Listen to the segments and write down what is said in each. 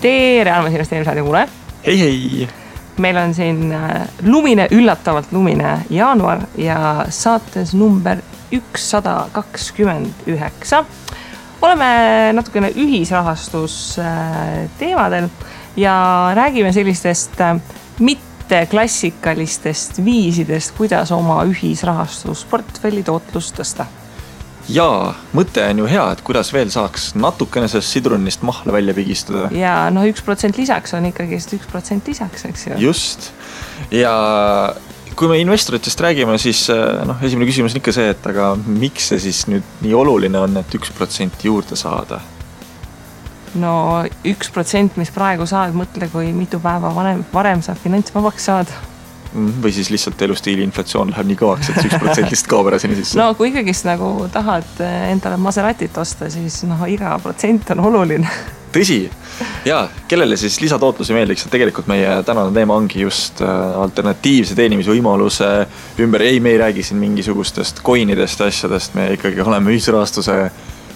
tere, armas investeerimisraadi kuule. Hei. Meil on siin üllatavalt lumine jaanuar ja saates number 129. Oleme natukene ühisrahastus teemadel ja räägime sellistest mitte klassikalistest viisidest, kuidas oma ühisrahastusportfelli tootlust tõsta. Jaa, mõte on ju hea, et kuidas veel saaks natukene sellest sidrunist mahla välja pigistada. Ja 1% lisaks on ikkagi 1% lisaks, eks ju. Just. Ja kui me investoritest räägime, siis esimene küsimus on ikka see, et aga miks see siis nüüd nii oluline on, et 1% juurde saada? No 1%, mis praegu saad, mõtle, kui mitu päeva varem saab finantsvabaks saada. Või siis lihtsalt elustiili inflatsioon läheb nii kõvaks, et 1% kaob ära sinna sisse. No kui ikkagi nagu tahad endale Maseratit osta, siis iga protsent on oluline. Tõsi. Ja kellele siis lisatootlusi meeldiks, et tegelikult meie tänane teema ongi just alternatiivse teenimise võimaluse ümber. Ei, me ei räägi siin mingisugustest coinidest ja asjadest, me ikkagi oleme ühisrahastuse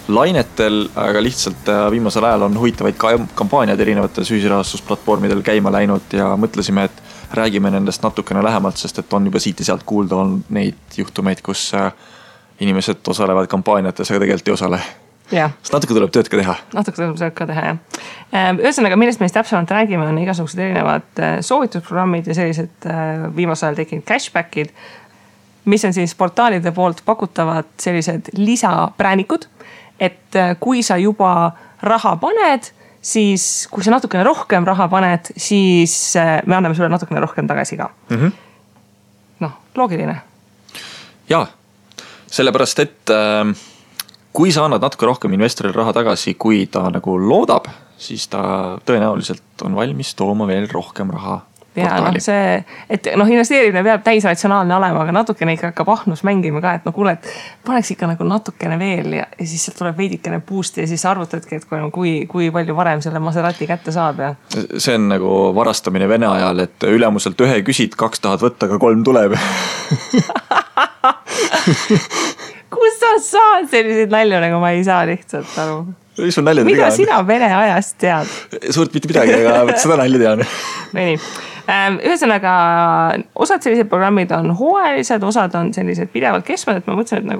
lainetel, aga lihtsalt viimasel ajal on huvitavaid kampaaniad erinevates ühisrahastusplatvormidel käima läinud ja mõtlesime, et räägime nendest natukene lähemalt, sest et on juba siit ja sealt kuulda on neid juhtumeid, kus inimesed osalevad kampaaniates, aga tegelikult ei osale. Sest natuke tuleb tööd ka teha. Natuke tuleb tööd ka teha, jah. Ühesõnaga, millest meist täpsemalt räägime, on igasugused erinevad soovitusprogrammid ja sellised viimasel ajal tekkinud cashbackid, mis on siis portaalide poolt pakutavad sellised lisapräänikud, et kui sa juba raha paned, siis kui sa natukene rohkem raha paned, siis me anname sulle natukene rohkem tagasi ka. Loogiline. Jaa, sellepärast, et kui sa annad natuke rohkem investoril raha tagasi, kui ta nagu loodab, siis ta tõenäoliselt on valmis tooma veel rohkem raha portaali. Ja et investeerimine peab täisratsionaalne olema, aga natukene ikka hakkab ahnus mängima ka, et kuule, et paneks ikka nagu natukene veel ja siis sealt tuleb veidikene boost ja siis arvutadki, et kui palju varem selle Maserati kätte saab. Ja. See on nagu varastamine Vene ajal, et ülemuselt 1 küsid, 2 tahad võtta, aga 3 tuleb. Kus sa saad selliseid nalju, nagu ma ei saa lihtsalt aru? Mida sina Vene ajast tead? Suurt mitte midagi, aga seda nalja tean. No nii. Ühesõnaga, osad sellised programmid on hooajalised, osad on sellised pidevalt kestvad, et ma mõtlesin, et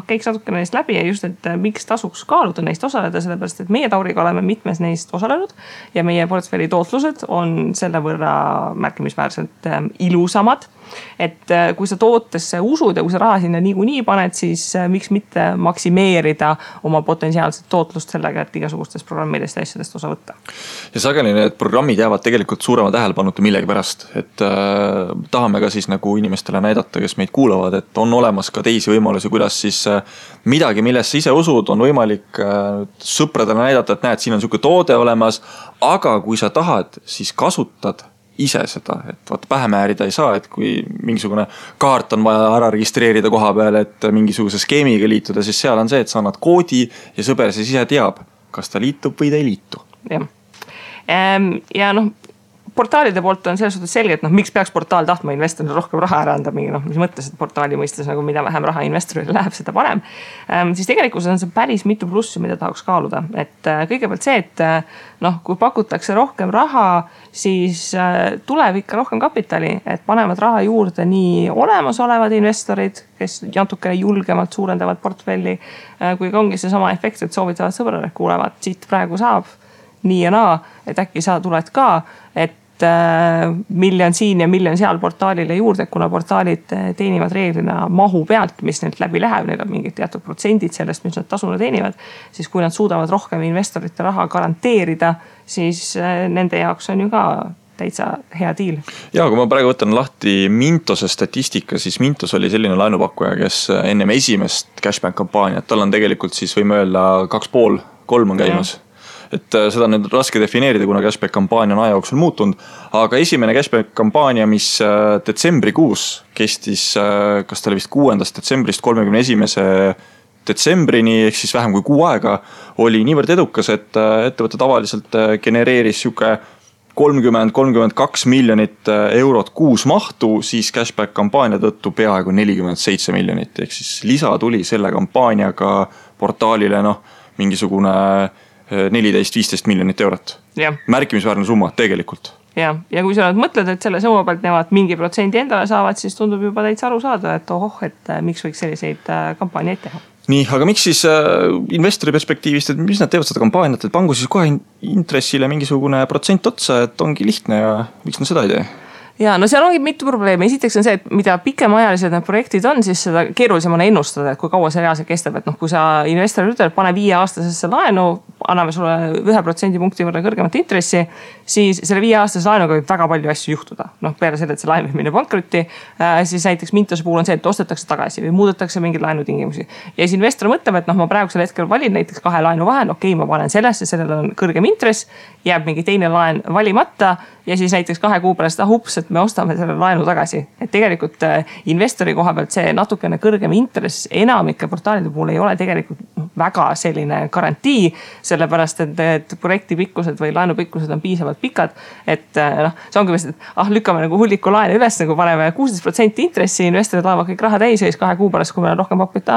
käiks natukene neist läbi ja just, et miks tasuks kaaluda neist osaleda, sellepärast, et meie Tauriga oleme mitmes neist osalenud ja meie portfelli tootlused on selle võrra märkimisväärselt ilusamad. Et kui sa tootesse usud ja kui sa raha sinna niikuinii paned, siis miks mitte maksimeerida oma potentsiaalset tootlust sellega, et igasugustest programmidest ja asjadest osa võtta. Ja sageli need programmid jäävad tegelikult suurema tähelepanuta millegi pärast, et tahame ka siis nagu inimestele näidata, kes meid kuulavad, et on olemas ka teisi võimalusi, kuidas siis midagi, millesse ise usud, on võimalik sõpradele näidata, et näed, siin on selline toode olemas, aga kui sa tahad, siis kasutad ise seda, et pähe määrida ei saa, et kui mingisugune kaart on vaja ära registreerida koha peal, et mingisuguse skeemiga liituda, siis seal on see, et sa annad koodi ja sõber siis ise teab, kas ta liitub või ta ei liitu. Ja portaalide poolt on selles suhtes selge, et miks peaks portaal tahtma investorile rohkem raha ära anda, mis mõttes, et portaali mõistes mida vähem raha investorile läheb, seda parem. Siis tegelikult on see päris mitu plussi, mida tahaks kaaluda. Et kõigepealt see, et kui pakutakse rohkem raha, siis tuleb ikka rohkem kapitali, et panevad raha juurde nii olemasolevad investorid, kes natukene julgemalt suurendavad portfelli, kui ongi see sama efekt, et soovitavad sõbrale, kuulevad, siit praegu saab nii ja naa, et äkki sa tuled ka, et miljon siin ja miljon seal portaalile juurde, kuna portaalid teenivad reeglina mahu pealt, mis neilt läbi läheb, neil on mingid teatud protsendid sellest, mis nad tasuna teenivad, siis kui nad suudavad rohkem investorite raha garanteerida, siis nende jaoks on ju ka täitsa hea diil. Ja kui ma praegu võtan lahti Mintose statistika, siis Mintos oli selline laenupakkuja, kes ennem esimest cashback kampaaniat, tal on tegelikult siis võime öelda 2,5-3 on käimas. Et seda on nüüd raske defineerida, kuna cashback kampaania on aja jooksul muutunud, aga esimene cashback kampaania, mis detsembrikuus kestis, kas ta oli vist 6. detsembrist 31. detsembrini, ehk siis vähem kui 6 aega, oli niivõrd edukas, et ettevõte tavaliselt genereeris 30-32 miljonit eurot kuus mahtu, siis cashback kampaania tõttu peaaegu 47 miljonit, ehk siis lisa tuli selle kampaaniaga portaalile mingisugune 14-15 miljonit eurot. Märkimisväärne summa tegelikult. Ja kui sa mõtled, et selle summa pealt nemad mingi protsendi endale saavad, siis tundub juba täitsa aru saada, et et miks võiks selliseid kampaaniaid teha. Nii, aga miks siis investori perspektiivist, et mis nad teevad seda kampaaniat, et pangu siis kohe intressile mingisugune protsent otsa, et ongi lihtne ja miks nad seda ei tee? Ja no seal ongi mitu probleemi. Esiteks on see, et mida pikemaajalised need projektid on, siis seda keerulisem on ennustada, et kui kaua see reaalselt kestab. Et kui sa investorile ütled, pane 5-aastasesse laenu, anname sulle 1% punkti võrra kõrgemat intressi, siis selle 5-aastase laenuga võib väga palju asju juhtuda. Peale selle, et see laen võib minna pankrotti, siis näiteks Mintose puhul on see, et ostetakse tagasi või muudetakse mingeid laenutingimusi. Ja siis investor mõtleb, et ma praegusel hetkel valin näiteks 2 laenu vahel, ma panen sellesse, sellel on kõrgem intress, jääb mingi teine laen valimata ja siis näiteks 2 kuu pärast, ups, et me ostame selle laenu tagasi. Et tegelikult investori koha pealt see natukene kõrgem intress enamike portaalide puhul ei ole tegelikult väga selline garantii, sellepärast et projekti pikkused või laenu pikkused on piisavalt pikad, et see ongi vist, et lükkame nagu hulliku laene üles, nagu paneme 16% intressi, investorid laevad kõik raha täis ja siis 2 kuu pärast, kui meil on rohkem pakku, et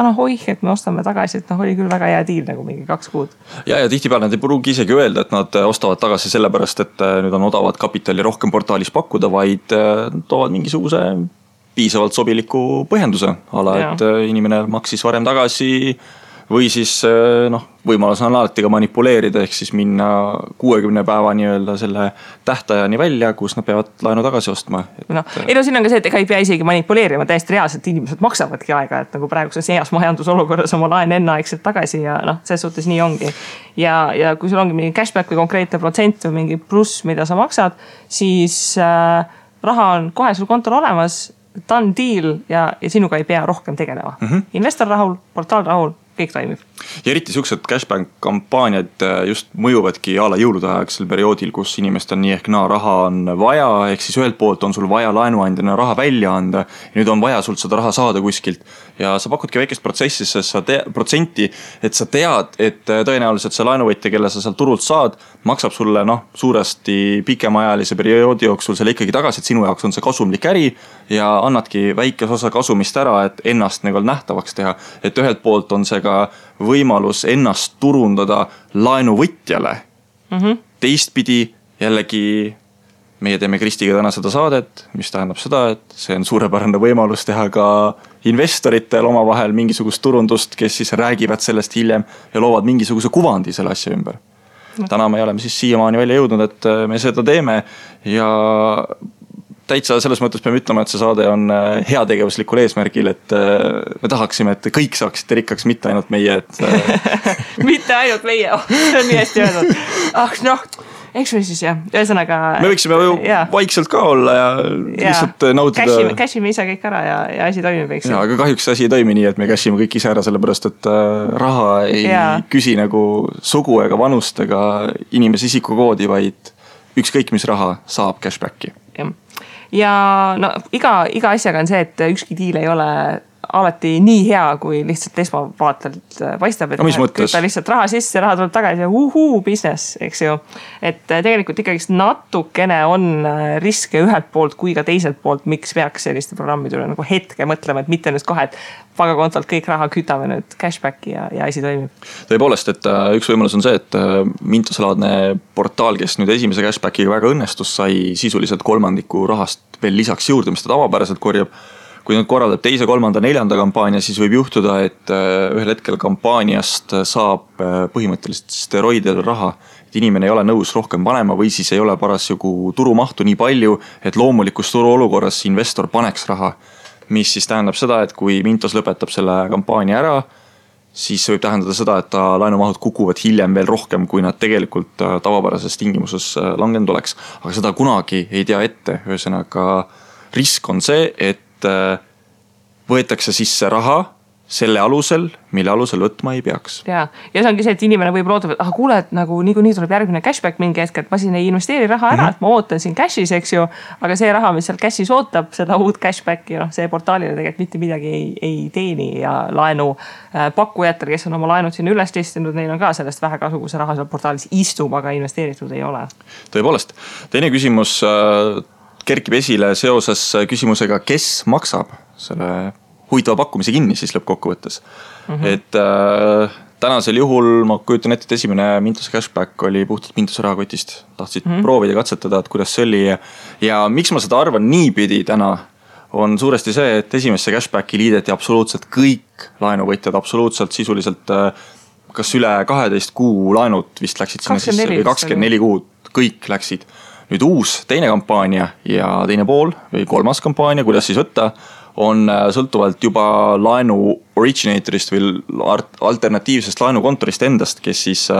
et me ostame tagasi, et oli küll väga hea diil nagu mingi 2 kuud. Ja tihtipeale nad ei pruugi isegi öelda, et nad ostavad tagasi sellepärast, et nüüd on odavad kapitali rohkem portaalis pakkuda, vaid toovad mingisuguse piisavalt sobiliku põhjenduse ala, et inimene maksis varem tagasi või siis võimalus on alati ka manipuleerida, ehk siis minna 60 päeva nii-öelda selle tähtajani välja, kus nad peavad laenu tagasi ostma. Siin on ka see, et ega ei pea isegi manipuleerima, täiesti reaalselt inimesed maksavadki aega, et nagu praeguses heas majandusolukorras oma laen enneaegselt tagasi ja selles suhtes nii ongi. Ja kui sul ongi mingi cashback või konkreetne protsent või mingi pluss, mida sa maksad, siis raha on kohe sul kontol olemas, done deal ja sinuga ei pea rohkem tegelema. Investor rahul, portaal rahul, kõik toimib. Ja eriti siuksed cashback kampaaniad just mõjuvadki ala jõulude ajaksel perioodil, kus inimestel nii ehk raha on vaja, ehk siis ühelt poolt on sul vaja laenuandjana raha välja anda ja nüüd on vaja sul seda raha saada kuskilt ja sa pakudki väikest protsenti, et sa tead, et tõenäoliselt see laenuvõtja, kelle sa sealt turult saad, maksab sulle suuresti pikemaajalise perioodi jooksul selle ikkagi tagasi, et sinu jaoks on see kasumlik äri ja annadki väikes osa kasumist ära, et ennast nähtavaks teha, et ühelt poolt on see ka võimalus ennast turundada laenuvõtjale. Teistpidi jällegi meie teeme Kristiga täna seda saadet, mis tähendab seda, et see on suurepärane võimalus teha ka investoritel oma vahel mingisugust turundust, kes siis räägivad sellest hiljem ja loovad mingisuguse kuvandi selle asja ümber. Täna me oleme siis siiamaani välja jõudnud, et me seda teeme ja täitsa selles mõttes peame ütlema, et see saade on heategevuslikul eesmärgil, et me tahaksime, et kõik saaksite rikkaks, mitte ainult meie. Mitte ainult meie, see on nii hästi öeldud. Eks me siis ühesõnaga. Me võiksime vaikselt ka olla ja lihtsalt nautida. Cashime ise kõik ära ja asi toimib, eks. Aga kahjuks asi ei toimi nii, et me cashime kõik ise ära, sellepärast et raha ei küsi nagu sugu ega vanust ega inimese isikukoodi, vaid ükskõik mis raha saab cashbacki. Ja iga asjaga on see, et ükski diil ei ole alati nii hea, kui lihtsalt esmavaatelt paistab, et kütta lihtsalt raha sisse, raha tuleb tagasi ja business, eks ju. Et tegelikult ikkagi natukene on riske ühelt poolt kui ka teiselt poolt, miks peaks selliste programmide üle nagu hetke mõtlema, et mitte nüüd kohe, et pangakontolt kõik raha kütame nüüd cashbacki ja asi toimib. Tõepoolest, et üks võimalus on see, et Mintose-laadne portaal, kes nüüd esimese cashbackiga väga õnnestus, sai sisuliselt 1/3 rahast veel lisaks juurde, mis ta tavapäraselt korjab. Kui nüüd korraldab 2., 3., 4. kampaania, siis võib juhtuda, et ühel hetkel kampaaniast saab põhimõtteliselt steroididel raha, et inimene ei ole nõus rohkem panema või siis ei ole parasjagu turumahtu nii palju, et loomulikus turuolukorras investor paneks raha, mis siis tähendab seda, et kui Mintos lõpetab selle kampaania ära, siis see võib tähendada seda, et ta laenumahud kukuvad hiljem veel rohkem, kui nad tegelikult tavapärases tingimuses langenud oleks. Aga seda kunagi ei tea ette, ühesõnaga risk on see, et võetakse sisse raha selle alusel, mille alusel võtma ei peaks. Ja see ongi see, et inimene võib loodab, et kuule, et nagu nii tuleb järgmine cashback mingi hetk, et ma siin ei investeeri raha ära, et ma ootan siin cashis, eks ju, aga see raha, mis seal cashis ootab, seda uut cashbacki, see portaalile tegelikult mitte midagi ei teeni ja laenu pakkujatel, kes on oma laenud sinna üles listinud, neil on ka sellest vähe kasu, kui see raha seal portaalis istub, aga investeeritud ei ole. Tõepoolest, teine küsimus kerkib esile seoses küsimusega, kes maksab selle huvitava pakkumise kinni siis lõppkokkuvõttes. Et tänasel juhul ma kujutan ette, et esimene Mintuse cashback oli puhtalt Mintuse rahakotist. Tahtsid proovida, katsetada, et kuidas see oli. Ja miks ma seda arvan niipidi täna, on suuresti see, et esimesse cashbacki liideti absoluutselt kõik laenuvõtjad, absoluutselt sisuliselt kas üle 12 kuu laenud vist läksid sinna 24, sisse või 24 kuud, kõik läksid. Nüüd uus teine kampaania ja teine pool või kolmas kampaania, kuidas siis võtta, on sõltuvalt juba laenu originatorist või alternatiivsest laenukontorist endast, kes siis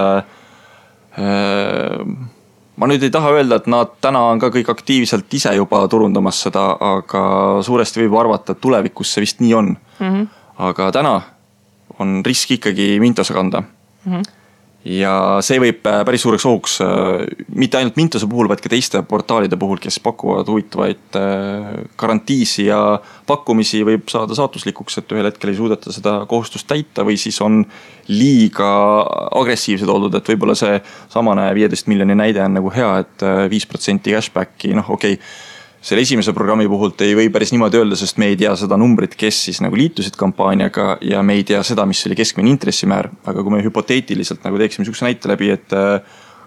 ma nüüd ei taha öelda, et nad täna on ka kõik aktiivselt ise juba turundamas seda, aga suuresti võib arvata, et tulevikus see vist nii on. Aga täna on risk ikkagi Mintose kanda. Ja see võib päris suureks ohuks mitte ainult Mintose puhul, vaid ka teiste portaalide puhul, kes pakuvad huvitavaid garantiisi ja pakkumisi, võib saada saatuslikuks, et ühel hetkel ei suudeta seda kohustust täita või siis on liiga agressiivsed oldud, et võib-olla see samane 15 miljoni näide on nagu hea, et 5% cashbacki, okei. Selle esimese programmi puhult ei või päris niimoodi öelda, sest me ei tea seda numbrit, kes siis nagu liitusid kampaaniaga ja me ei tea seda, mis oli keskmine intressimäär. Aga kui me hüpoteetiliselt nagu teeksime sükse näite läbi, et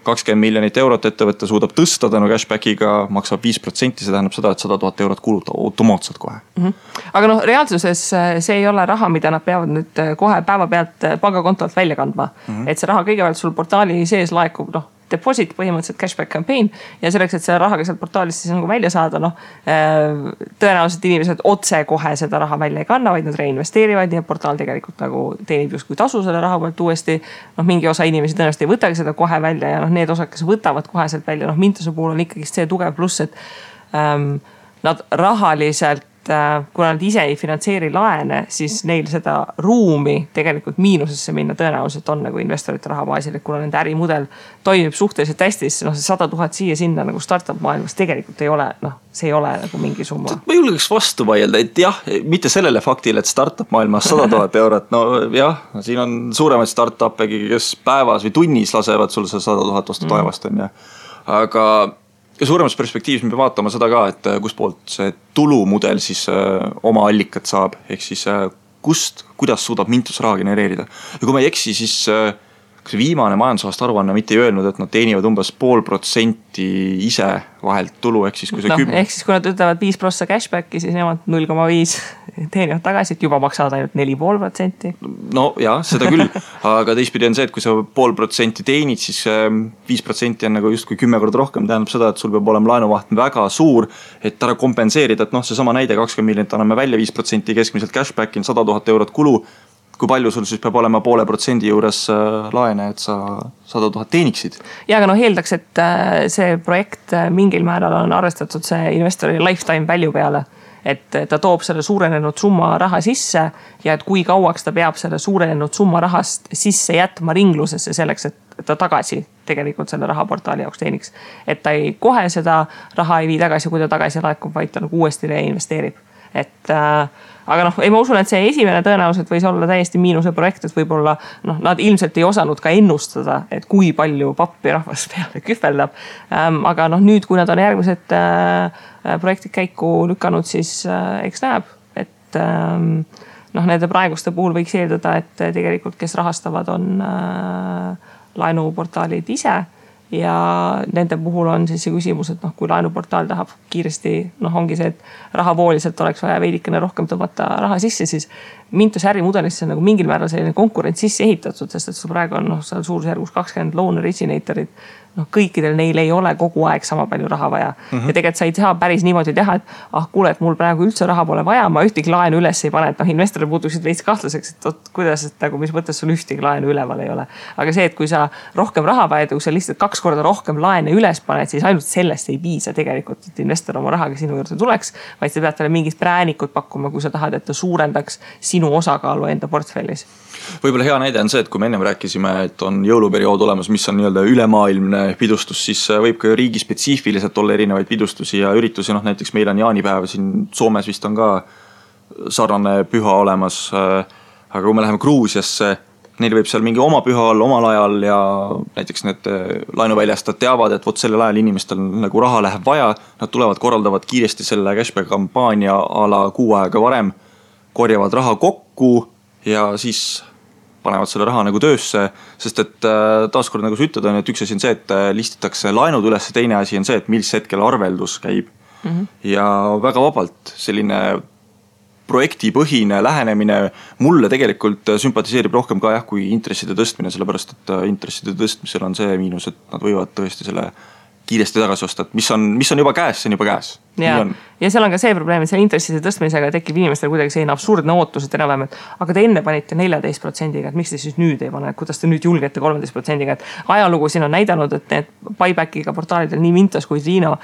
20 miljonit eurot ettevõtte suudab tõsta tänu cashbackiga, maksab 5%, see tähendab seda, et 100 000 eurot kuluta automaatselt kohe. Aga reaalsuses see ei ole raha, mida nad peavad nüüd kohe päeva pealt pangakontolt välja kandma. Et see raha kõigepealt sul portaali sees laekub, deposit põhimõtteliselt cashback campaign ja selleks, et selle rahaga sealt portaalist siis nagu välja saada, tõenäoliselt inimesed otse kohe seda raha välja ei kanna, vaid nad reinvesteerivad ja portaal tegelikult nagu teenib just kui tasu selle raha pealt uuesti. Mingi osa inimesi tõenäoliselt ei võtagi seda kohe välja ja need osad, kes võtavad kohe sealt välja, Mintuse puhul on ikkagi see tugev pluss, et nad rahaliselt, kuna nad ise ei finantseeri laene, siis neil seda ruumi tegelikult miinusesse minna tõenäoliselt on nagu investorite rahabaasil, et kuna nende ärimudel toimib suhteliselt hästi, siis see 100 000 siia sinna nagu startup maailmas tegelikult ei ole, see ei ole nagu mingi summa. Ma julgeks vastu vaielda, et jah, mitte sellele faktile, et startup maailmas 100 000 eurot, siin on suuremaid startup'egi, kes päevas või tunnis lasevad sul see 100 000 vastu taevast on ja. Aga ja suuremas perspektiivis me peame vaatama seda ka, et kust poolt see tulumudel siis oma allikat saab, ehk siis kuidas suudab Mintus raha genereerida. Ja kui ma ei eksi, siis see viimane majandusaasta aruanne mitte ei öelnud, et nad teenivad umbes 0,5% ise vahelt tulu, ehk siis kui see 10... Ehk siis kui nad ütlevad 5% cashbacki, siis nemad 0,5 teenivad tagasi, et juba maksavad ainult 4,5%. No jah, seda küll, aga teistpidi on see, et kui sa 0,5% teenid, siis 5% on nagu just kui 10 korda rohkem, tähendab seda, et sul peab olema laenuvaht väga suur, et ära kompenseerida, et see sama näide 20 miljonit anname välja 5% keskmiselt cashbacki, 100 000 eurot kulu, kui palju sul siis peab olema 0,5% juures laene, et sa 100 000 teeniksid. Ja aga eeldaks, et see projekt mingil määral on arvestatud see investori lifetime value peale. Et ta toob selle suurenenud summa raha sisse ja et kui kauaks ta peab selle suurenenud summa rahast sisse jätma ringlusesse selleks, et ta tagasi tegelikult selle rahaportaali jaoks teeniks. Et ta ei kohe seda raha ei vii tagasi, kui ta tagasi laekub, vaid ta nagu uuesti reinvesteerib. Aga ma usun, et see esimene tõenäoliselt võis olla täiesti miinuse projekt, et võib-olla nad ilmselt ei osanud ka ennustada, et kui palju pappi rahvas peale kühveldab. Aga nüüd, kui nad on järgmised projektid käiku lükanud, siis eks näeb, et nende praeguste puhul võiks eeldada, et tegelikult kes rahastavad on laenuportaalid ise. Ja nende puhul on siis see küsimus, et kui laenuportaal tahab kiiresti, ongi see, et rahavooliselt oleks vaja veidikene rohkem tõmmata raha sisse, siis Mintuse ärimudelisse on nagu mingil määral selline konkurents sisse ehitatud, sest et sul praegu on seal suurusjärgus 20 loan originatorid. Kõikidel neil ei ole kogu aeg sama palju raha vaja. Ja tegelikult sa ei saa päris niimoodi teha, et kuule, et mul praegu üldse raha pole vaja, ma ühtegi laenu üles ei pane, et investorid puutuksid veits kahtlaseks, et kuidas, et nagu mis mõttes sul ühtegi laenu üleval ei ole. Aga see, et kui sa rohkem raha vajad, kui sa lihtsalt 2 korda rohkem laene üles paned, siis ainult sellest ei piisa tegelikult, et investor oma rahaga sinu juurde tuleks, vaid sa pead talle mingid präänikud pakkuma, kui sa tahad, et ta suurendaks sinu osakaalu enda portfellis. Võib-olla hea näide on see, et kui me ennem rääkisime, et on jõuluperiood olemas, mis on nii-öelda ülemaailmne pidustus, siis võib ka riigi spetsiifiliselt olla erinevaid pidustusi ja üritusi. Näiteks meil on jaanipäev, siin Soomes vist on ka sarnane püha olemas. Aga kui me läheme Gruusiasse, neil võib seal mingi oma püha olla omal ajal ja näiteks need laenuväljastajad teavad, et sellel ajal inimestel nagu raha läheb vaja. Nad tulevad, korraldavad kiiresti selle cashback kampaania ala 6 aega varem, korjavad raha kokku ja siis panevad selle raha nagu töösse, sest et taaskord nagu sa ütled, on, et üks asi on see, et listitakse laenud üles, teine asi on see, et mis hetkel arveldus käib. Ja väga vabalt selline projektipõhine lähenemine mulle tegelikult sümpatiseerib rohkem ka kui intresside tõstmine, sellepärast et intresside tõstmisel on see miinus, et nad võivad tõesti selle kiiresti tagasi osta, et mis on juba käes, see on juba käes. Ja seal on ka see probleem, et selle intresside tõstmisega tekib inimestel kuidagi selline absurdne ootus, et enam-vähem, et aga te enne panite 14%-ga, et miks te siis nüüd ei pane, kuidas te nüüd julgete 13%-ga, et ajalugu siin on näidanud, et need buybackiga portaalidel nii Mintos kui Triino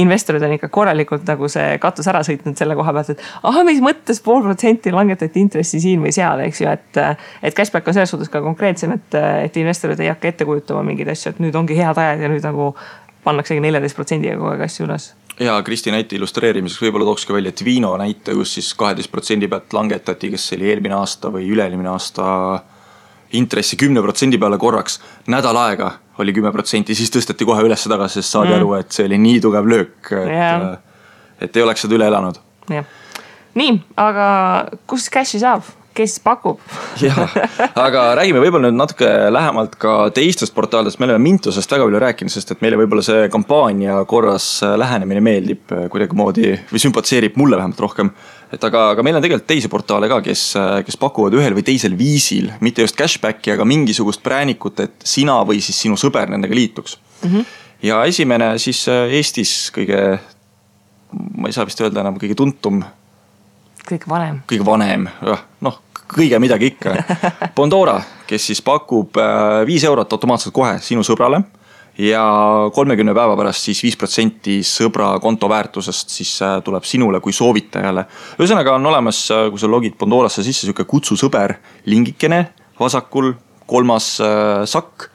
investorid on ikka korralikult nagu see katus ära sõitnud selle koha pealt, et mis mõttes 0,5% langetati intressi siin või seal, eks ju, et cashback on selles suhtes ka konkreetsem, et investorid ei hakka ette kujutama mingeid asju, et nüüd ongi head ajad ja nüüd nagu pannaksegi 14%-ga kogu aeg asju üles. Ja Kristi näite illustreerimiseks võib-olla tookski välja Twino näite, kus siis 12% pealt langetati, kes oli eelmine aasta või üle-eelmine aasta intressi 10% peale korraks. Nädal aega oli 10%, siis tõsteti kohe üles tagasi, sest saadi aru, et see oli nii tugev löök, et ei oleks seda üle elanud. Ja. Nii, aga kus cashi saab? Kes pakub? Aga räägime võib-olla nüüd natuke lähemalt ka teistest portaalidest. Me oleme Mintosest väga palju rääkinud, sest et meile võib-olla see kampaania korras lähenemine meeldib kuidagi moodi või sümpatiseerib mulle vähemalt rohkem. Aga meil on tegelikult teisi portaale ka, kes pakuvad ühel või teisel viisil, mitte just cashbacki, aga mingisugust präänikut, et sina või siis sinu sõber nendega liituks. Ja esimene siis Eestis kõige, ma ei saa vist öelda enam, kõige tuntum kõige vanem, kõige midagi ikka. Bondora, kes siis pakub 5 eurot automaatselt kohe sinu sõbrale ja 30 päeva pärast siis 5% sõbra konto väärtusest siis tuleb sinule kui soovitajale. Ühesõnaga on olemas, kui sa logid Bondorasse sisse, selline kutsu sõber, lingikene, vasakul 3. sakk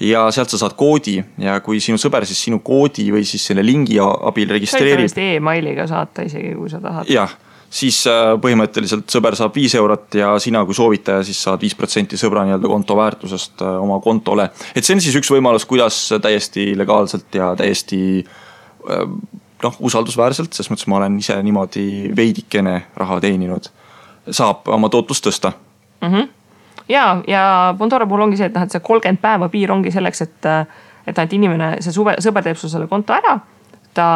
ja sealt sa saad koodi ja kui sinu sõber siis sinu koodi või siis selle lingi abil registreerib. Sa võid e-mailiga saata isegi, kui sa tahad. Jah. Siis põhimõtteliselt sõber saab 5 eurot ja sina kui soovitaja siis saad 5% sõbra nii-öelda konto väärtusest oma kontole. Et see on siis üks võimalus, kuidas täiesti legaalselt ja täiesti usaldusväärselt, sest mõttes ma olen ise niimoodi veidikene raha teeninud, saab oma tootlust tõsta. Ja Bondora puhul ongi see, et see 30 päeva piir ongi selleks, et inimene, see sõber teeb sul selle konto ära, ta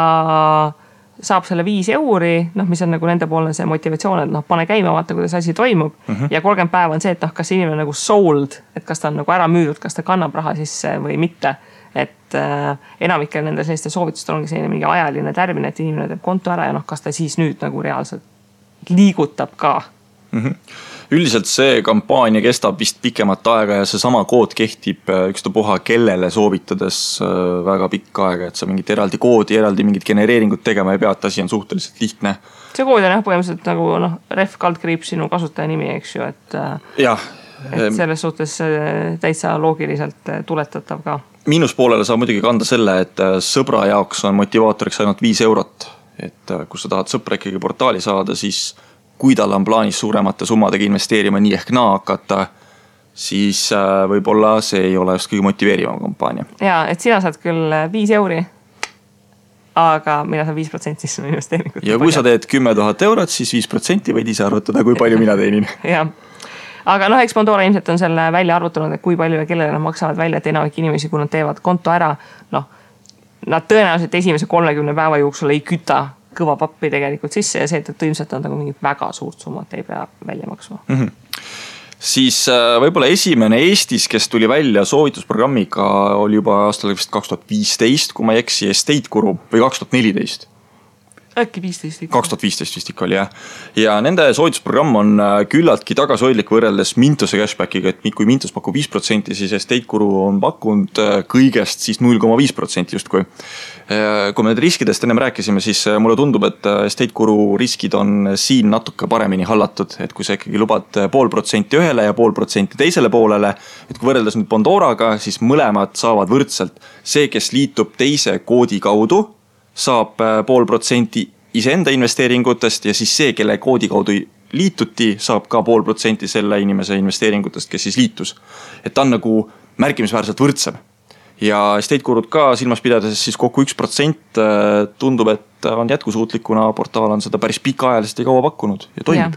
saab selle 5 euri, mis on nagu nende poolne see motivatsioon, et pane käima, vaata, kuidas asi toimub. Ja 30 päeva on see, et kas inimene nagu sold, et kas ta on nagu ära müüdud, kas ta kannab raha sisse või mitte. Et enamikel nende selliste soovitustel ongi selline mingi ajaline tärmin, et inimene teeb konto ära ja kas ta siis nüüd nagu reaalselt liigutab ka. Üldiselt see kampaania kestab vist pikemat aega ja see sama kood kehtib ükstapuha kellele soovitades väga pikka aega, et sa mingit eraldi koodi, eraldi mingit genereeringut tegema ei pea, et asi on suhteliselt lihtne. See kood on põhimõtteliselt nagu ref kaldkriips sinu kasutaja nimi, eks ju, et selles suhtes täitsa loogiliselt tuletatav ka. Miinuspoolele saab muidugi kanda selle, et sõbra jaoks on motivaatoriks ainult 5 eurot, et kui sa tahad sõpra ikkagi portaali saada, siis kui tal on plaanis suuremate summadega investeerima nii ehk naa hakata, siis võib-olla see ei ole just kõige motiveerivam kampaania. Ja, et sina saad küll 5 euri, aga mina saan 5% sinu investeeringut. Ja kui sa teed 10 000 eurot, siis 5% võid ise arvutada, kui palju mina teenin. Aga eks Bondora ilmselt on selle välja arvutanud, et kui palju ja kellele nad maksavad välja, et enamik inimesi, kui nad teevad konto ära, nad tõenäoliselt esimese 30 päeva jooksul ei küta kõva pappi tegelikult sisse ja see, et ilmselt on nagu mingit väga suurt summat ei pea välja maksma. Siis võib-olla esimene Eestis, kes tuli välja soovitusprogrammiga, oli juba aastal 2015, kui ma ei eksi, Estate Guru või 2014. Äkki 15. 2015 vist ikka oli, jah. Ja nende soovitusprogramm on küllaltki tagasihoidlik võrreldes Mintose cashbackiga, et kui Mintos pakub 5%, siis Estate Guru on pakkunud kõigest siis 0,5% justkui. Kui me need riskidest ennem rääkisime, siis mulle tundub, et Estate Guru riskid on siin natuke paremini hallatud, et kui sa ikkagi lubad 0,5% ühele ja 0,5% teisele poolele, et kui võrreldes nüüd Bondoraga, siis mõlemad saavad võrdselt. See, kes liitub teise koodi kaudu, saab 0,5% iseenda investeeringutest ja siis see, kelle koodi kaudu liituti, saab ka 0,5% selle inimese investeeringutest, kes siis liitus. Et ta on nagu märkimisväärselt võrdsem. Ja Estate Gurud ka silmas pidades siis kokku 1% tundub, et on jätkusuutlikuna portaal on seda päris pikaajaliselt ja kaua pakkunud ja toimib.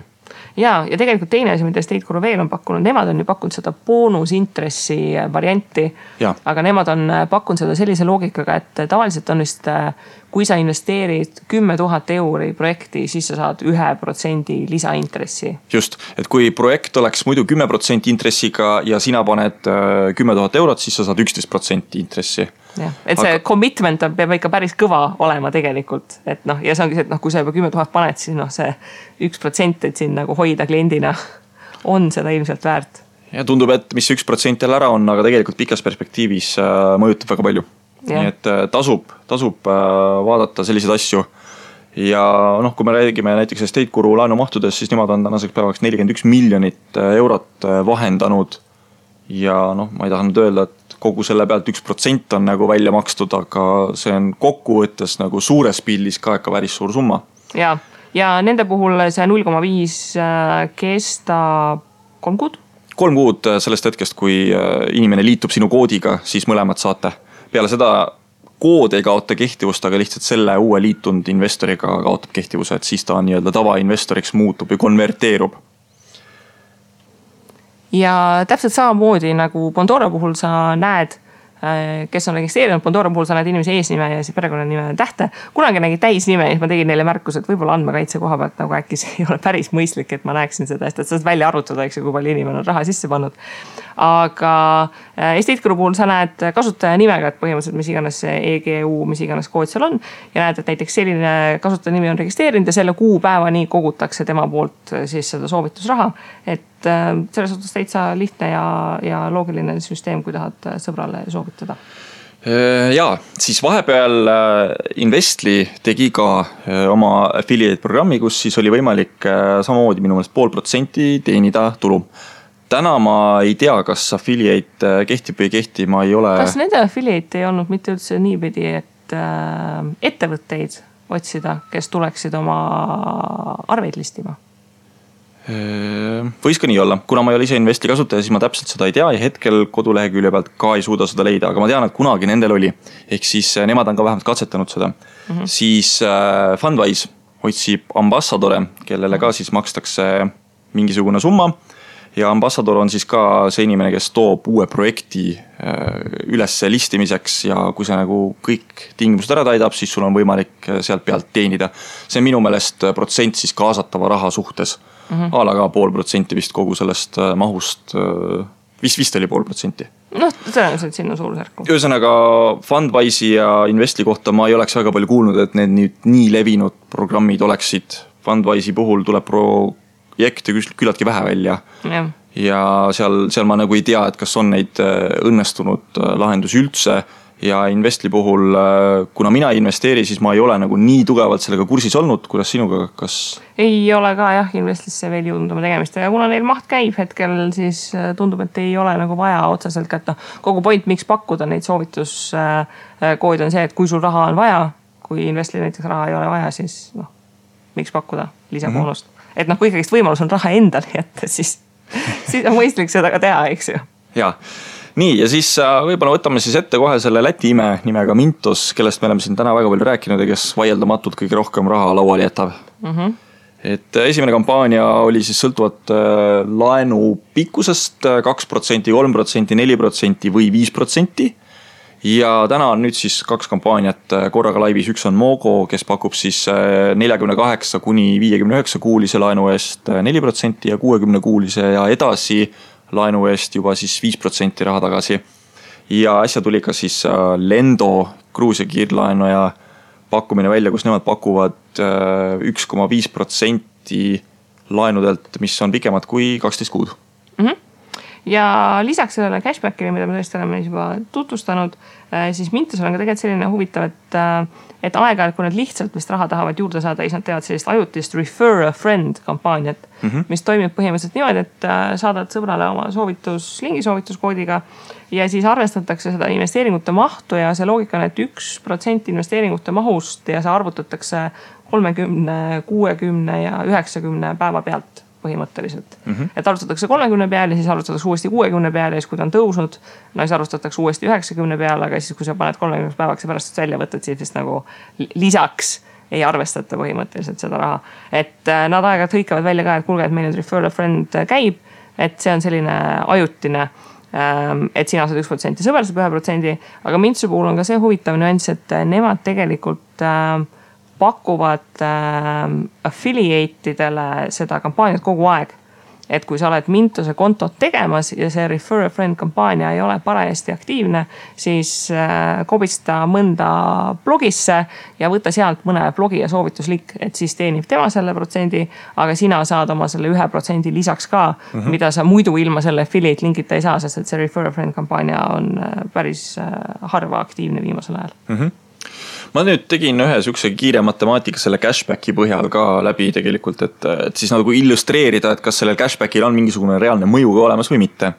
ja tegelikult teine asi, mida Estate Guru veel on pakkunud, nemad on ju pakkunud seda boonusintressi varianti, aga nemad on pakkunud seda sellise loogikaga, et tavaliselt on vist, kui sa investeerid 10 000 euri projekti, siis sa saad 1% lisaintressi. Just, et kui projekt oleks muidu 10% intressiga ja sina paned 10 000 eurot, siis sa saad 11% intressi. Ja, et see commitment peab ikka päris kõva olema tegelikult, et noh, ja see ongi see, et noh, kui sa juba 10 000 paned, siis noh, see 1%, et siin nagu hoida kliendina on seda ilmselt väärt. Ja tundub, et mis 1% jälle ära on, aga tegelikult pikas perspektiivis mõjutab väga palju. Ja. Nii et tasub vaadata selliseid asju. Ja noh, kui me räägime näiteks Estate Guru laenumahtudes, siis nemad on tänaseks päevaks 41 miljonit eurot vahendanud. Ja noh, ma ei taha nüüd öelda, et kogu selle pealt 1% on nagu välja makstud, aga see on kokkuvõttes nagu suures pildis ka ikka päris suur summa. Ja nende puhul see 0,5 kestab 3 kuud? 3 kuud sellest hetkest, kui inimene liitub sinu koodiga, siis mõlemad saate. Peale seda kood ei kaota kehtivust, aga lihtsalt selle uue liitunud investoriga kaotab kehtivuse, et siis ta on nii-öelda tavainvestoriks muutub või konverteerub. Ja täpselt samamoodi nagu Bondora puhul sa näed, kes on registreerinud, Bondora puhul sa näed inimese eesnime ja siis perekonnanime tähte. Kunagi nägi täisnime ja siis ma tegin neile märkus, et võib-olla andmekaitse koha pealt nagu äkki see ei ole päris mõistlik, et ma näeksin seda, et saad välja arvutada, eks, kui palju inimene on raha sisse pannud. Aga Estate Guru puhul sa näed kasutaja nimega, et põhimõtteliselt mis iganes see EGU, mis iganes kood seal on ja näed, et näiteks selline kasutaja nimi on registreerinud ja selle kuupäevani kogutakse tema poolt siis seda soovitusraha, et selles suhtes täitsa lihtne ja loogiline süsteem, kui tahad sõbrale soovitada. Ja, siis vahepeal Investly tegi ka oma affiliate programmi, kus siis oli võimalik samamoodi minu meelest 0,5% teenida tulu. Täna ma ei tea, kas affiliate kehtib või ei kehti, ma ei ole... Kas nende affiliate ei olnud mitte üldse niipidi, et ettevõtteid otsida, kes tuleksid oma arveid listima? Võis ka nii olla. Kuna ma ei ole ise Investly kasutaja, siis ma täpselt seda ei tea ja hetkel kodulehekülje pealt ka ei suuda seda leida, aga ma tean, et kunagi nendel oli. Ehk siis nemad on ka vähemalt katsetanud seda. Siis Fundwise otsib ambassadore, kellele ka siis makstakse mingisugune summa. Ja ambassador on siis ka see inimene, kes toob uue projekti üles listimiseks ja kui see nagu kõik tingimused ära täidab, siis sul on võimalik sealt pealt teenida. See on minu meelest protsent siis kaasatava raha suhtes. Ala ka 0,5% vist kogu sellest mahust, vist oli 0,5%. Noh, tõenäoliselt sinna suurusjärku. Ühesõnaga Fundwise'i ja Investly kohta ma ei oleks väga palju kuulnud, et need nii levinud programmid oleksid. Fundwise'i puhul tuleb projekte küllaltki vähe välja. Ja seal ma nagu ei tea, et kas on neid õnnestunud lahendusi üldse. Ja Investly puhul, kuna mina ei investeeri, siis ma ei ole nagu nii tugevalt sellega kursis olnud, kuidas sinuga, kas... Ei ole ka jah, Investlysse veel jõudnud oma tegemist ja kuna neil maht käib hetkel, siis tundub, et ei ole nagu vaja otseselt, et kogu point, miks pakkuda neid soovituskoodi on see, et kui sul raha on vaja, kui Investly näiteks raha ei ole vaja, siis miks pakkuda lisaboonust. Et kui ikkagist võimalus on raha endal jätta, siis on mõistlik seda ka teha, eks ju. Jaa. Nii, ja siis võibolla võtame siis ette kohe selle Läti ime nimega Mintos, kellest me oleme siin täna väga palju rääkinud ja kes vaieldamatult kõige rohkem raha lauale jätab. Et esimene kampaania oli siis sõltuvat laenu pikkusest 2%, 3%, 4% või 5%. Ja täna on nüüd siis 2 kampaaniat korraga laivis. Üks on Mogo, kes pakub siis 48 kuni 59 kuulise laenu eest 4% ja 60 kuulise ja edasi laenu eest juba siis 5% raha tagasi. Ja äsja tuli ka siis Lendo Gruusia kiirlaenu ja pakkumine välja, kus nemad pakuvad 1,5% laenudelt, mis on pikemad kui 12 kuud. Ja lisaks sellele cashbackile, mida me tõesti oleme juba tutvustanud, siis Mintos on ka tegelikult selline huvitav, et aeg-ajalt, kui nad lihtsalt vist raha tahavad juurde saada, siis nad teevad sellist ajutist refer a friend kampaaniat, mis toimib põhimõtteliselt niimoodi, et saadad sõbrale oma lingi soovituskoodiga ja siis arvestatakse seda investeeringute mahtu ja see loogika on, et 1% investeeringute mahust ja see arvutatakse 30, 60 ja 90 päeva pealt põhimõtteliselt. Et arvutatakse 30 peale, siis arvutatakse uuesti 60 peale ja siis kui ta on tõusnud, siis arvutatakse uuesti 90 peale, aga siis kui sa paned 30 päevaks ja pärast välja võtad, siis nagu lisaks ei arvestata põhimõtteliselt seda raha. Et nad aeg-ajalt hõikavad välja ka, et kuulge, et meil nüüd refer a friend käib, et see on selline ajutine, et sina saad 1%, sõber saab 1%, aga Mintsu puhul on ka see huvitav nüanss, et nemad tegelikult pakuvad affiliate'idele seda kampaaniat kogu aeg. Et kui sa oled Mintuse kontot tegemas ja see Refer a Friend kampaania ei ole parajasti aktiivne, siis kobista mõnda blogisse ja võta sealt mõne blogi ja soovituslik, et siis teenib tema selle protsendi, aga sina saad oma selle 1% lisaks ka, mida sa muidu ilma selle affiliate linkita ei saa, sest et see Refer a Friend kampaania on päris harva aktiivne viimasel ajal. Ma nüüd tegin ühe sükse kiire matemaatika selle cashbacki põhjal ka läbi tegelikult, et siis nagu illustreerida, et kas sellel cashbackil on mingisugune reaalne mõju ka olemas või mitte.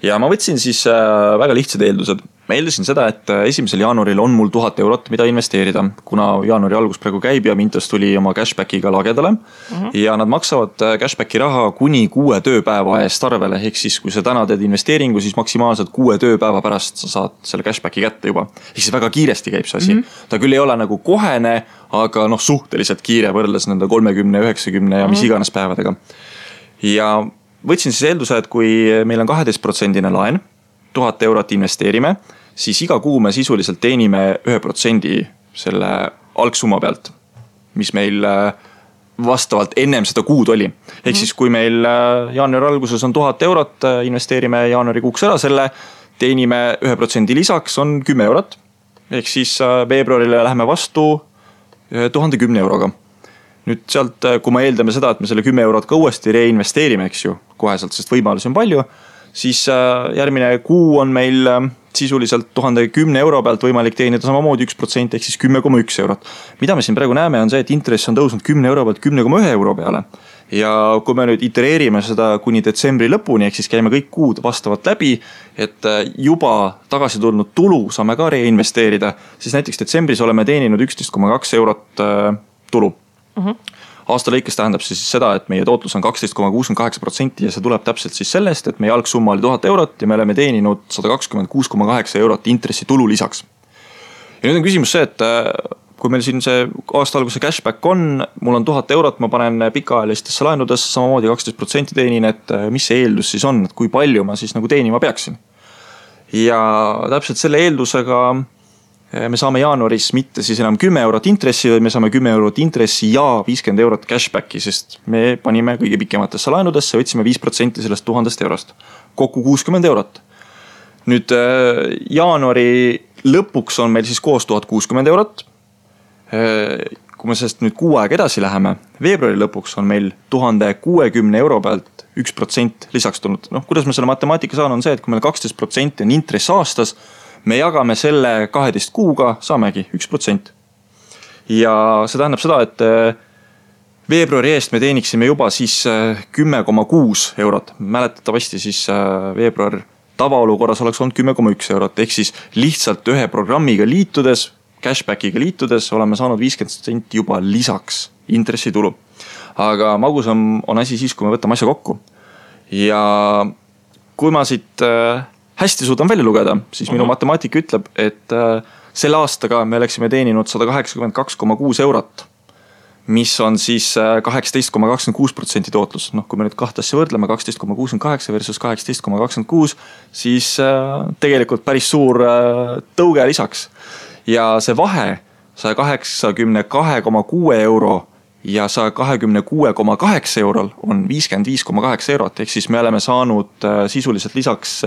Ja ma võtsin siis väga lihtsad eeldused. Ma eeldasin seda, et 1. jaanuaril on mul 1000 eurot, mida investeerida, kuna jaanuari algus praegu käib ja Mintos tuli oma cashbackiga lagedale. Ja nad maksavad cashbacki raha kuni 6 tööpäeva eest arvele. Ehk siis, kui sa täna teed investeeringu, siis maksimaalselt 6 tööpäeva pärast sa saad selle cashbacki kätte juba. Ehk siis väga kiiresti käib see asi. Ta küll ei ole nagu kohene, aga suhteliselt kiire võrreldes nende 30, 90 ja mis iganes päevadega. Ja võtsin siis eelduse, et kui meil on 12% laen, 1000 eurot investeerime, siis iga kuu me sisuliselt teenime 1% selle algsumma pealt, mis meil vastavalt ennem seda kuud oli. Ehk siis kui meil jaanuari alguses on 1000 eurot, investeerime jaanuari kuuks ära selle, teenime 1% lisaks on 10 eurot. Ehk siis veebruarile läheme vastu 1010 euroga. Nüüd sealt, kui me eeldame seda, et me selle 10 eurot ka uuesti reinvesteerime, eks ju, koheselt, sest võimalusi on palju, siis järgmine kuu on meil sisuliselt 1010 euro pealt võimalik teenida samamoodi 1% ehk siis 10,1 eurot. Mida me siin praegu näeme on see, et intress on tõusnud 10 euro pealt 10,1 euro peale. Ja kui me nüüd itereerime seda kuni detsembri lõpuni, ehk siis käime kõik kuud vastavalt läbi, et juba tagasi tulnud tulu saame ka reinvesteerida, siis näiteks detsembris oleme teeninud 11,2 eurot tulu. Aasta lõikes tähendab siis seda, et meie tootlus on 12,68% ja see tuleb täpselt siis sellest, et meie algsumma oli 1000 eurot ja me oleme teeninud 126,8 eurot intressi tulu lisaks. Ja nüüd on küsimus see, et kui meil siin see aasta alguse cashback on, mul on 1000 eurot, ma panen pikaajalistesse laenudesse, samamoodi 12% teenin, et mis see eeldus siis on, et kui palju ma siis nagu teenima peaksin. Ja täpselt selle eeldusega me saame jaanuaris mitte siis enam 10 eurot intressi, või me saame 10 eurot intressi ja 50 eurot cashbacki, sest me panime kõige pikematesse laenudesse, võtsime 5% sellest 1000 eurost. Kokku 60 eurot. Nüüd jaanuari lõpuks on meil siis koos 1060 eurot. Kui me sellest nüüd kuu aeg edasi läheme, veebruari lõpuks on meil 1060 euro pealt 1% lisaks tulnud. Kuidas me selle matemaatika saan on see, et kui meil 12% on intress aastas, me jagame selle 12 kuuga, saamegi 1%. Ja see tähendab seda, et veebruari eest me teeniksime juba siis 10,6 eurot. Mäletatavasti siis veebruar tavaolukorras oleks olnud 10,1 eurot. Ehk siis lihtsalt ühe programmiga liitudes, cashbackiga liitudes oleme saanud 50% juba lisaks intressitulu. Aga magus on asi siis, kui me võtame asja kokku. Ja kui ma siit hästi suudan välja lugeda, siis minu matemaatika ütleb, et selle aastaga me oleksime teeninud 182,6 eurot, mis on siis 18,26% tootlus. Kui me nüüd kahte asja võrdleme, 12,68 versus 18,26, siis tegelikult päris suur tõuge lisaks. Ja see vahe 182,6 euro ja 126,8 eurol on 55,8 eurot, ehk siis me oleme saanud sisuliselt lisaks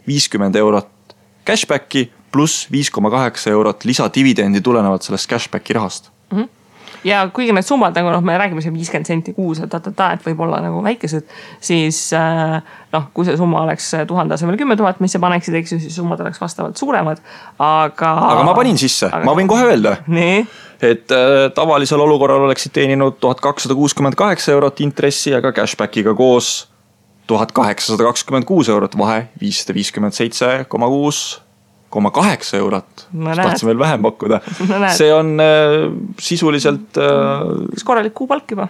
50 eurot cashbacki pluss 5,8 eurot lisadividendi tulenevalt sellest cashbacki rahast. Ja kuigi need summad, nagu me räägime siin 50 senti kuus, et võib olla nagu väikesed, siis kui see summa oleks 1000 asemel 10 000, mis sa paneksid, eks ju, siis summad oleks vastavalt suuremad. Aga ma panin sisse, ma võin kohe öelda. Nii? Et tavalisel olukorral oleksid teeninud 1268 eurot intressi, aga cashbackiga koos 1826 eurot, vahe 557,6 eurot, tahtsime veel vähem pakkuda. See on sisuliselt... Kas korralik kuupalk juba?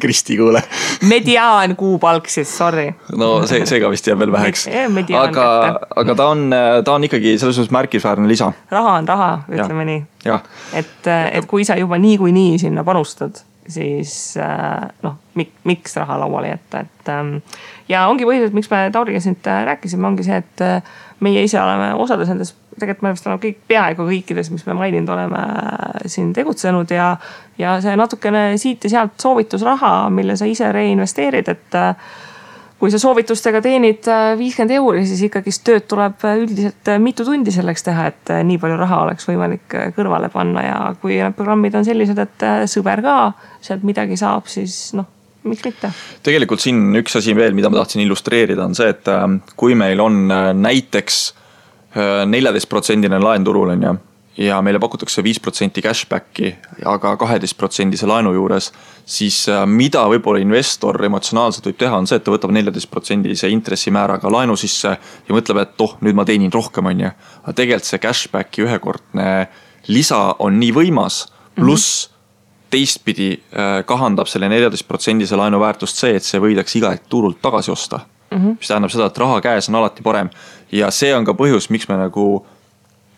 Kristi kuule. Mediaan kuupalk siis, sorry. No see ka vist jääb veel väheks. Aga ta on ikkagi selles suhtes märkisväärne lisa. Raha on raha, ütleme nii. Et kui sa juba nii sinna panustad, siis miks raha lauale jätta. Ja ongi põhjus, miks me Tauriga siin rääkisime, ongi see, et meie ise oleme osades nendes, tegelikult me oleme peaaegu kõikides, mis me maininud oleme siin tegutsenud ja see natukene siit ja sealt soovitusraha, mille sa ise reinvesteerid, et kui sa soovitustega teenid 50 €, siis ikkagi tööd tuleb üldiselt mitu tundi selleks teha, et nii palju raha oleks võimalik kõrvale panna ja kui need programmid on sellised, et sõber ka sealt midagi saab, siis miks mitte? Tegelikult siin üks asi veel, mida ma tahtsin illustreerida, on see, et kui meil on näiteks 14% laen turul ja meile pakutakse 5% cashbacki, aga 12% laenu juures, siis mida võib-olla investor emotsionaalselt võib teha, on see, et ta võtab 14% intressimääraga laenu sisse ja mõtleb, et nüüd ma teenin rohkem, aga tegelikult see cashbacki ühekordne lisa on nii võimas, pluss teistpidi kahandab selle 14% laenu väärtust see, et see võidaks iga turult tagasi osta. Mis tähendab seda, et raha käes on alati parem. Ja see on ka põhjus, miks me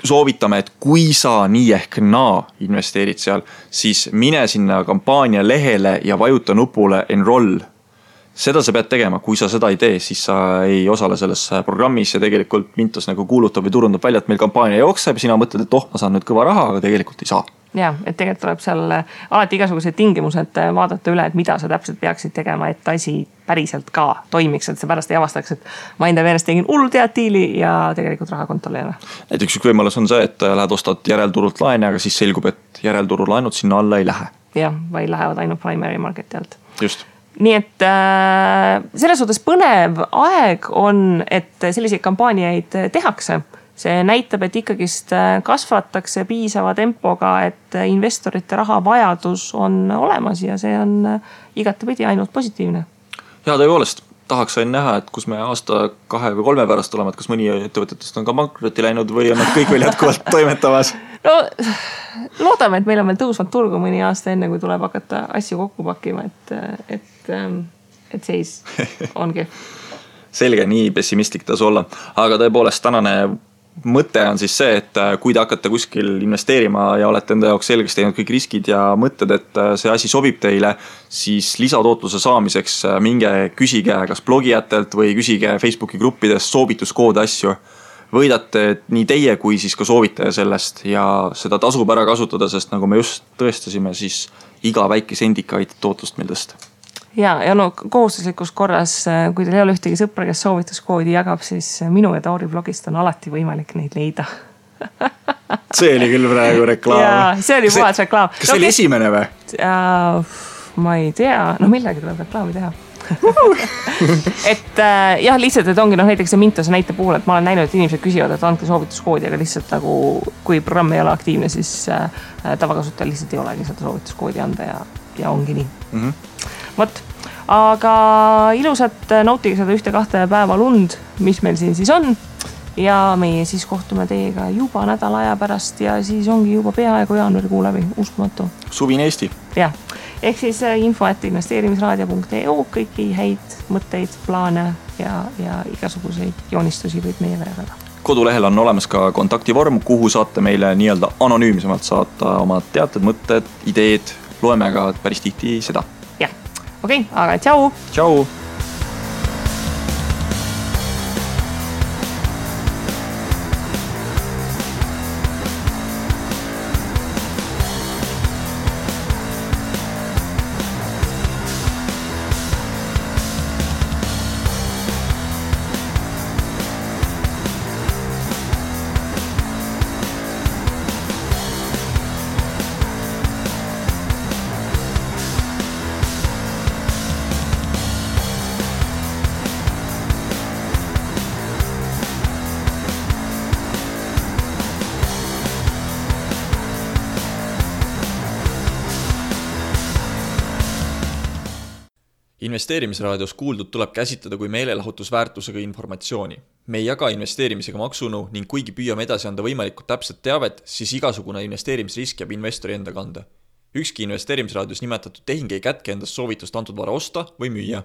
soovitame, et kui sa nii ehk naa investeerid seal, siis mine sinna kampaania lehele ja vajuta nupule enroll. Seda sa pead tegema, kui sa seda ei tee, siis sa ei osale selles programmis ja tegelikult Mintos kuulutab või turundab välja, et meil kampaania jookseb ja sina mõtled, et ma saan nüüd kõva raha, aga tegelikult ei saa. Ja, et tegelikult tuleb seal alati igasugused tingimused vaadata üle, et mida sa täpselt peaksid tegema, et asi päriselt ka toimiks, et see pärast ei avastaks, et ma enda meelest tegin hullu teatiili ja tegelikult raha kontol ei ole. Näiteks üks võimalus on see, et lähed ostad järelturult laene, aga siis selgub, et järelturu laenud sinna alla ei lähe. Jah, vaid lähevad ainult primary marketi alt. Just. Nii et selles suhtes põnev aeg on, et selliseid kampaaniaid tehakse. See näitab, et ikkagist kasvatakse piisava tempoga, et investorite raha vajadus on olemas ja see on igatepidi ainult positiivne. Ja tõepoolest, tahaks sain näha, et kus me aasta 2 või 3 pärast oleme, et kas mõni ettevõtetest on ka pankrotti läinud või on nad kõik veel jätkuvalt toimetamas? No, loodame, et meil on veel tõusvad turgu mõni aasta enne, kui tuleb hakata asju kokku pakkima, et seis ongi. Selge, nii pessimistlik tasu olla. Aga tõepoolest, tänane mõte on siis see, et kui te hakkate kuskil investeerima ja olete enda jaoks selgeks teinud kõik riskid ja mõtted, et see asi sobib teile, siis lisatootluse saamiseks minge küsige kas blogijatelt või küsige Facebooki gruppidest soovituskoode asju. Võidate nii teie kui siis ka soovitaja sellest ja seda tasub ära kasutada, sest nagu me just tõestasime, siis iga väike sendika aitab tootlust meil tõsta. Ja kohustuslikus korras, kui teil ei ole ühtegi sõpra, kes soovituskoodi jagab, siis minu ja Tauri blogist on alati võimalik neid leida. See oli küll praegu reklaam. Ja, see oli puhas reklaam. Kas see oli esimene või? Ma ei tea, millegi tuleb reklaami teha. Et jah, lihtsalt, et ongi näiteks see Mintose näite puhul, et ma olen näinud, et inimesed küsivad, et andke soovituskoodi, aga lihtsalt kui programm ei ole aktiivne, siis tavakasutajal lihtsalt ei olegi seda soovituskoodi anda ja ongi nii. Võt, aga ilusat nautige seda 1-2 päeva lund, mis meil siin siis on ja meie siis kohtume teiega juba nädala aja pärast ja siis ongi juba peaaegu jaanuarikuu läbi, uskumatu. Suvine Eesti. Jah, ehk siis info@investeerimisraadio.eu kõiki häid mõtteid, plaane ja igasuguseid joonistusi võid meie väga. Kodulehel on olemas ka kontaktivorm, kuhu saate meile nii-öelda anonüümsemalt saata oma teated, mõtted, ideed, loeme ka päris tihti seda. Okei, aga tšau! Tšau! investeerimisraadios kuuldud tuleb käsitleda kui meelelahutusväärtusega informatsiooni. Me ei jaga investeerimisega maksunõu ning kuigi püüame edasi anda võimalikult täpset teavet, siis igasugune investeerimisrisk jääb investori enda kanda. Ükski investeerimisraadios nimetatud tehing ei kätke endast soovitust antud vara osta või müüa.